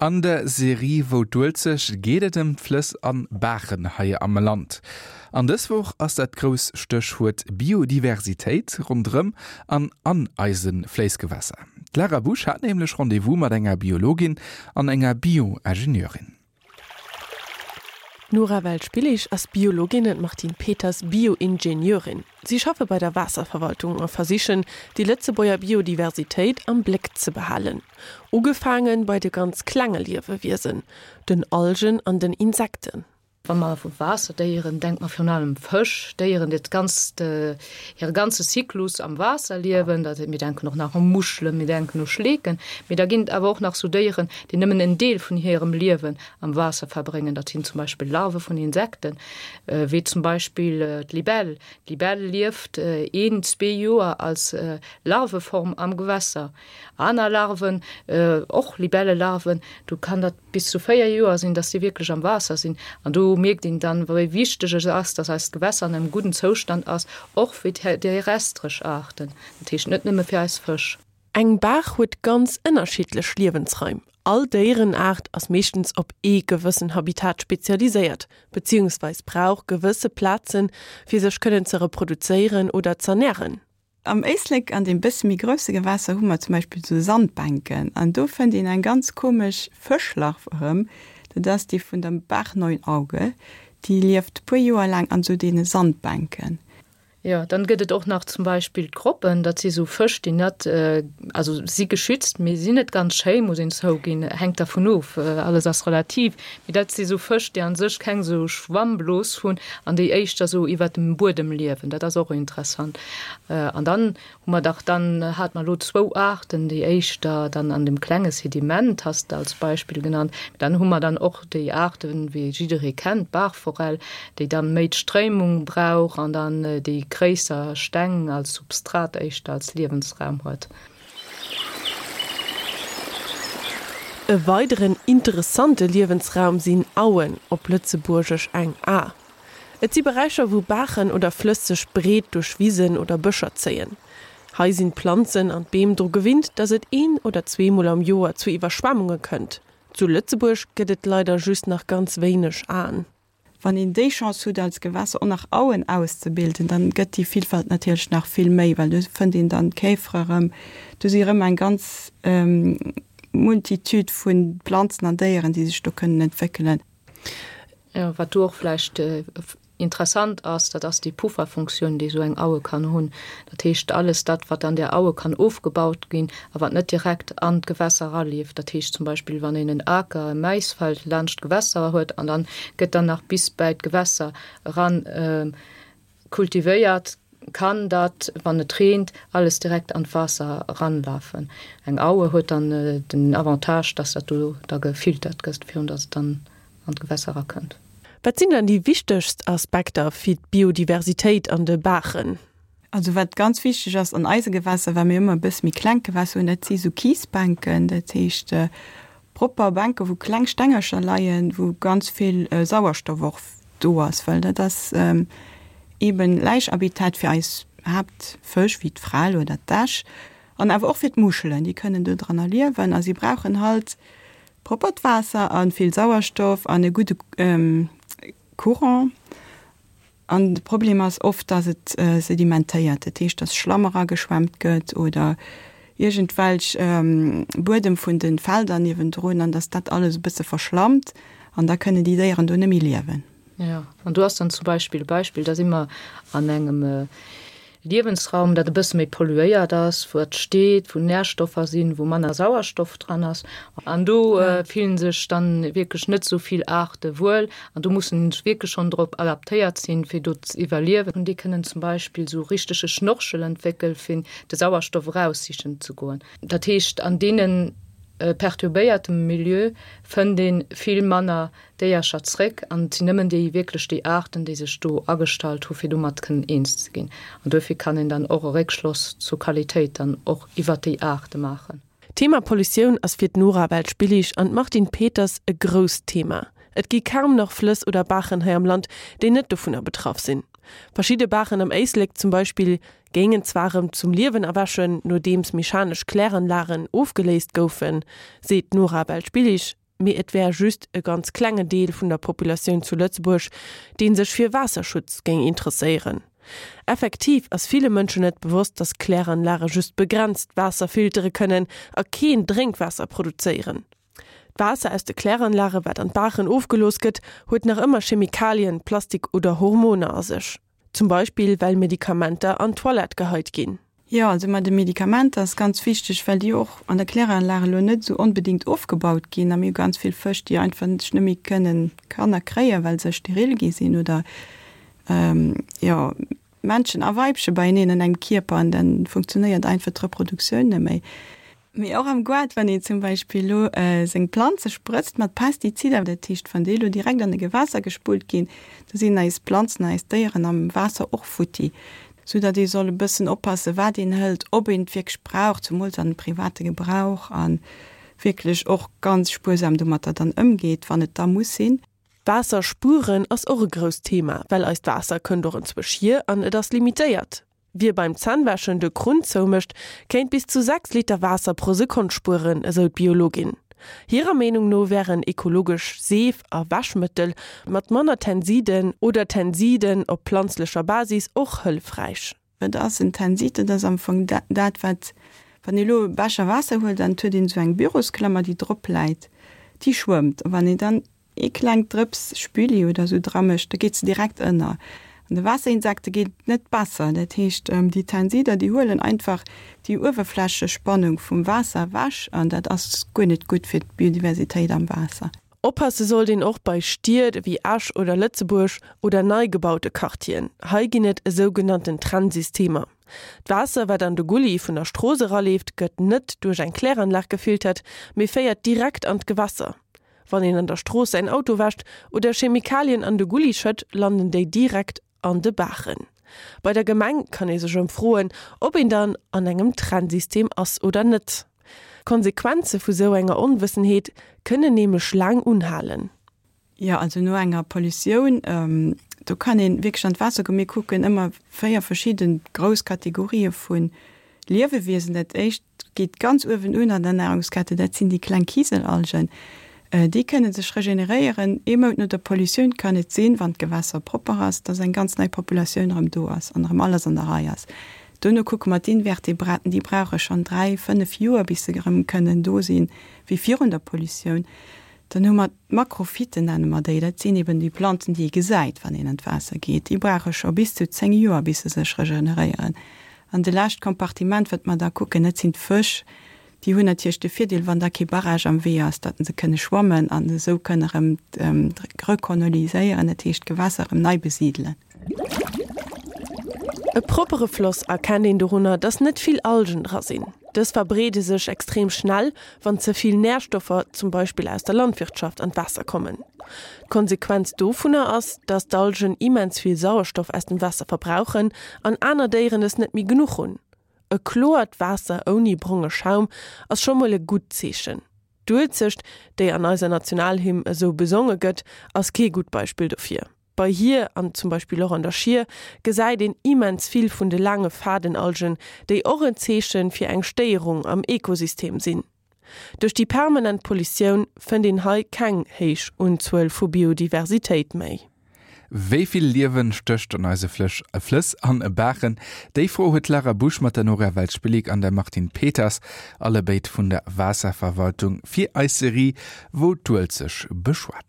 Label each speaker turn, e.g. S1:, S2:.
S1: An der Serie Wou d'Uelzecht geet et ëm d'Flëss an Baachen hei am Land. An dës Woch ass dat grouss Stéchwuert Biodiversitéit ronderëm an an eise Fléissgewässer. D'Lara Busch hat nämlech Rendez-vous mat enger Biologin an enger Bioingenieurin.
S2: D'Nora Welsch-Billig ass Biologin an d'Martine Peters Bioingenieurin. Si schaffe bei der Waasserverwaltung a versichen, déi Lëtzebuerger Biodiversitéit am Bléck ze behalen. Ugefaange bei de ganz klenge Liewewiesen, den Algen an den Insekten.
S3: Wa mer vu Waasserdéieren denkt mer virun allem Fësch, Déieren, déi d'ganzt, hire ganze Zyklus am Waasser liewen. Dat, mir denken och nach u Muschelen, mir denken u Schleeken. Mee da ginn et awer och nach sou Déieren, déi nëmmen en Deel vun hirem Liewen am Waasser verbréngen. Dat sinn zum Beispill Larve vun Insekten, wéi zum Beispill d'Libell. D'Libell lieft een, zwee Joer als Larveform am Gewässer. Aner Larven, och Libellelarven, do kann dat bis zu 4 Joer sinn, dass déi wierklech am Waasser sinn. An do mierkt een dann, wéi wichteg et ass, dass eist Gewässer an engem gudden Zoustand ass, och fir terrestresch Aarten, dat heescht net nëmme fir eis Fësch.
S2: Eng Baach huet ganz ënnerschiddlech Liewensraim. All Déierenaart ass meeschtens op ee gewëssen Habitat spezialiséiert, beziehungsweis brauch gewësse Plazen, fir sech kënnen ze reproduzéieren oder z'ernären.
S4: Am Éislek, an deem bësse méi grousse Gewässer, hu mer zum Beispill esou Sandbänken an do fënnt een eng ganz komesch Fëschlarv erëm, dat ass déi vun der Baachneunauge, déi lieft puer Joer laang an esou deene Sandbänken.
S3: Jo, dann gëtt et och nach zum Beispill d'Groppen, dat si sou Fësch, déi net, also si geschützt, mee sinn net ganz schéi, muss een zouginn, hänkt dervun of, alles ass relativ, mee dat si sou Fësch, déi a sech keng sou Schwammblos hunn an déi éischter sou iwwert dem Buedem liewen. Dat ass och interessant. An dann hu mer dach, dann hate mer elo zwou Aarten, déi éischter dann an dem klenge Sediment, has de als Beispill genannt. Mee dann hu mer dann och déi Aarten, wéi jidderee kennt, d'Baachforell, déi dann méi d'Stréimung brauch an dann déi gréisser Steng als Substrat éischter als Liewensraum huet.
S2: E weideren interessante Liewensraum sinn Auen, op Lëtzebuergesch eng A. Et si Beräicher, wou Baachen oder Flëss sech breet duerch Wisen oder Bëscher zéien. Hei sinn d'Planzen an d'Beem dru gewinnt, datt et een oder zweemol am Joer zu Iwwerschwemmunge kënnt. Zu Lëtzebuerg gëtt et leider just nach ganz wéineg Aen.
S4: Wann een déi Chance hutt als Gewässer och nach Auen auszebilden, dann gëtt déi Villfalt natierlech nach vill méi, well do fënnt een dann d'Käfere erëm, do si erëm eng ganz Multitude vu Planzen an Déieren, déi sech do kënnen entwéckelen.
S3: Jo, wat do och vläicht Interessant ass, dat ass déi Pufferfunktioun, déi esou eng Aue kann hunn. Dat heescht, alles dat, wat an där Aue kann ofgebaut ginn a wat net direkt an d'Gewässer eraleeft, dat heescht zum Beispill, wann een en Aker, e Maisfeld laanscht d'Gewässer huet an dann gëtt dann nach bis bäi d'Gewässer eran kultivéiert, kann dat, wann et reent, alles direkt an d'Waasser eranlafen. Eng Aue huet dann den Avantage, dass dat do da gefiltert gëtt, virun dass et dann an d'Gewässer erakënnt.
S2: Wat sinn dann déi wichtegst Aspekter fir d'Biodiversitéit an de Baachen?
S4: Also wat ganz wichteg ass an eise Gewässer, well mir ëmmer e bësse méi kleng Gewässer hunn, dat si sou Kiesbänken, dat heescht propper Bänke wou kleng Stengercher leien, wou ganz vill Sauerstoff och do ass, well dat ass eeben Läichhabitat fir eis Haaptfësch wéi d'Frell oder d'Äsch an awer och fir d'Muschelen, déi kënnen do dranner liewen a si brauchen halt Proppert Waasser a vill Sauerstoff an e gudde Courant. An de Problem ass oft, dass et sedimentéiert, dat heescht, dass Schlamm erageschwemmt gëtt oder iergendwelch Buedem vun de Felder niewendrun an dass dat alles e bësse verschlammt an da kënnen déi Déieren do net méi liewen.
S3: Jo, an do ass dann zum Beispill e Beispill, da si mer an engem Liewensraum, dat e bësse méi polluéiert ass, wou et steet, wou Närstoffer sinn, wou manner Sauerstoff dran ass. An do fillen sech dann wierklech net esou vill Aarte wuel an do mussen se wierklech schonn drop adaptéiert sinn, fir do z'iwwerliewen. An déi kënnen zum Beispill esou richtege Schnorchel entwéckel fir de Sauerstoff eraussichen ze goen. Dat heescht, an deene perturbéiertem Milieu fënnt ee vill manner Déiercher zréck an et sinn nëmmen déi wierklech déi Aarten, déi sech do agestallt hu fir domat kënnen eens ze ginn. An duerfir kann een dann och e Réckschloss zur Qualitéit dann och iwwert déi Aarte maachen.
S2: D'Thema Pollutioun ass fir d'Nora Welsch-Billig an d'Martine Peters e grousst Thema. Et gi kaum nach Flëss oder Baachen hei am Land, déi net dovunner betraff sinn. Verschidde Baachen am Éislek zum Beispill géingen zwar erëm zum Liewen erwächen, nodeems mechanesch Kläranlagen ofgeléist goufen, seet d'Nora Welsch-Billig. Mee et wär just e ganz klenge Deel vun der Populatioun zu Lëtzebuerg, dee sech fir Waasserschutz géing interesséieren. Effektiv ass ville Mënschen net bewosst, datt Kläranlage just begrenzt Waasser filtere kënnen a keen Drénkwaasser produzéieren. D'Waasser aus de Kläranlage wat an d'Baachen ofgelooss gëtt, huet nach ëmmer Chemikalien, Plastik oder Hormoner a sech. Zum Beispill well Medikamenter an d'Toilette geheit ginn.
S4: Jo, also mat de Medikamenter ass ganz wichteg, well déi och an der Kläranlag elo net esou onbedéngt ofgebaut ginn a mir hu ganz vill Fësch, déi einfach sech net méi kënnen Kanner kréien, well se steril gi sinn oder jo Männchen a Weibche beieneen an engem Kierper an dann funktionéiert einfach d'Reproduktioun net méi. Mee och am Goart, wann een zum Beispill elo seng Planze sprëtzt mat Pestizider, dat heescht wann déi elo direkt an e Gewässer gespullt ginn, da sinn eis Planzen, eis Déieren am Waasser och futti. Sou datt ee soll e bëssen oppassen, wat een hëlt, ob een et wierklech brauch, zemools an private Gebrauch, a wierklech och ganz spuersam domatter dann ëmgeet, wann et da muss sinn.
S2: Waasser spueren ass och e grousst Thema, well eist Waasser kënnt och enzwousch hier an et ass limitéiert. Wie beim Zännwäschen de Krunn zoumécht, kéint bis zu 6 Liter Waasser pro Sekonn spueren, esou d'Biologin. Hirer Meenung no wären ekologesch Seef a Wäschmëttel mat manner Tensiden oder Tensiden op planzlecher Basis och hëllefräich.
S4: Wat ass en Tensid? Dat ass am Fong dat, wat, wann ee elo e Becher Waasser huelt an et huet een esou eng Bürosklammer, déi drop läit, déi schwëmmt. A wann een dann ee klengt Drëps Spülli oder esou dra mécht, da geet se direkt ënner. An de Waasserinsekte geet et net besser. Dat heescht, déi Tensider, déi huelen einfach déi Uewerflächespannung vum Waasser ewech an dat ass guer net gutt fir d'Biodiversitéit am Waasser.
S2: Oppasse sollt een och bei Stied ewéi Esch oder Lëtzebuerg oder nei gebaute Quartieren. Hei ginn et esougenannten Trennsystemer. D'Waasser, wat an de Gulli vun der Strooss eraleeft, gëtt net duerch eng Kläranlag gefiltert, mee féiert direkt an d'Gewässer. Wann een an der Strooss säin Auto wäscht oder Chemikalien an de Gulli schëtt, landen déi direkt an de Baachen. Bei der Gemeng kann ee sech ëmfroen, ob een dann an engem Trennsystem ass oder net. D'Konsequenze vu sou enger Onwëssenheet kënnen nämlech laang unhalen.
S4: Jo, also no enger Pollutioun, do kann een wierklech an d'Waasser goen. Mir kucken ëmmer 4 verschidden grouss Kategorië vu Liewewiesen. Dat éischt geet ganz uewen un an der Nahrungskette, dat sinn déi kleng Kiselalgen. Déi kënne sech regeneréieren. Ee Mount no der Pollutioun kann et sinn, wann d'Gewässer propper ass, dass eng ganz nei Populatioun erëm do ass an erëm alles an der Rei ass. Dono kucke mer d'Invertebraten, déi brauche schonn 3, 5 Joer, bis se erëm kënnen do sinn, wéi virun der Pollutioun. Dann hu mer d'Makrophyten, nenne mer déi, dat sinn eben déi Planzen, déi ee gesäit, wann een an d'Waasser geet. Déi brauche scho bis zu 10 Joer, bis se sech regeneréieren. An de lescht Kompartiment, wat mer da kucken, dat sinn d'Fësch. Déi hunn natierlech de Virdeel, wann da kee Barrage am Wee ass, datt se kënne schwammen an esou kënne erëm rekoloniséieren, dat heescht d'Gewässer erëm nei besidelen.
S2: E proppere Floss erkennt een dorunner, dass net vill Algen dra sinn. Dës verbreede sech extrem schnell, wann ze vill Närstoffer, zum Beispill aus der Landwirtschaft, an d'Waasser kommen. D'Konsequenz dovunner ass, dass d'Algen immens vill Sauerstoff aus dem Waasser verbrauchen an aner Déieren es net méi genuch hunn. E kloert Waasser ouni bronge Schaum ass scho mol e gutt Zeechen. D'Uelzecht, déi an eiser Nationalhymn esou besonge gëtt, ass kee gutt Beispill dofir. Bei hir, an zum Beispill och an der Schier, gesäit een immens vill vun de laange Fadenalgen, déi och en Zeeche fir eng Stéierung am Ekosystem sinn. Duerch déi permanent Pollutioun fënnt een hei keng héich Unzuel vu Biodiversitéit méi.
S1: Wéi vill Liewen stécht an eise Flëss an Baachen? Déi Fro huet d'Lara Busch mat der Nora Welsch-Billig an der Martine Peters, allebéid vun der Waasserverwaltung, fir eis Serie Wou d'Uelzecht beschwat.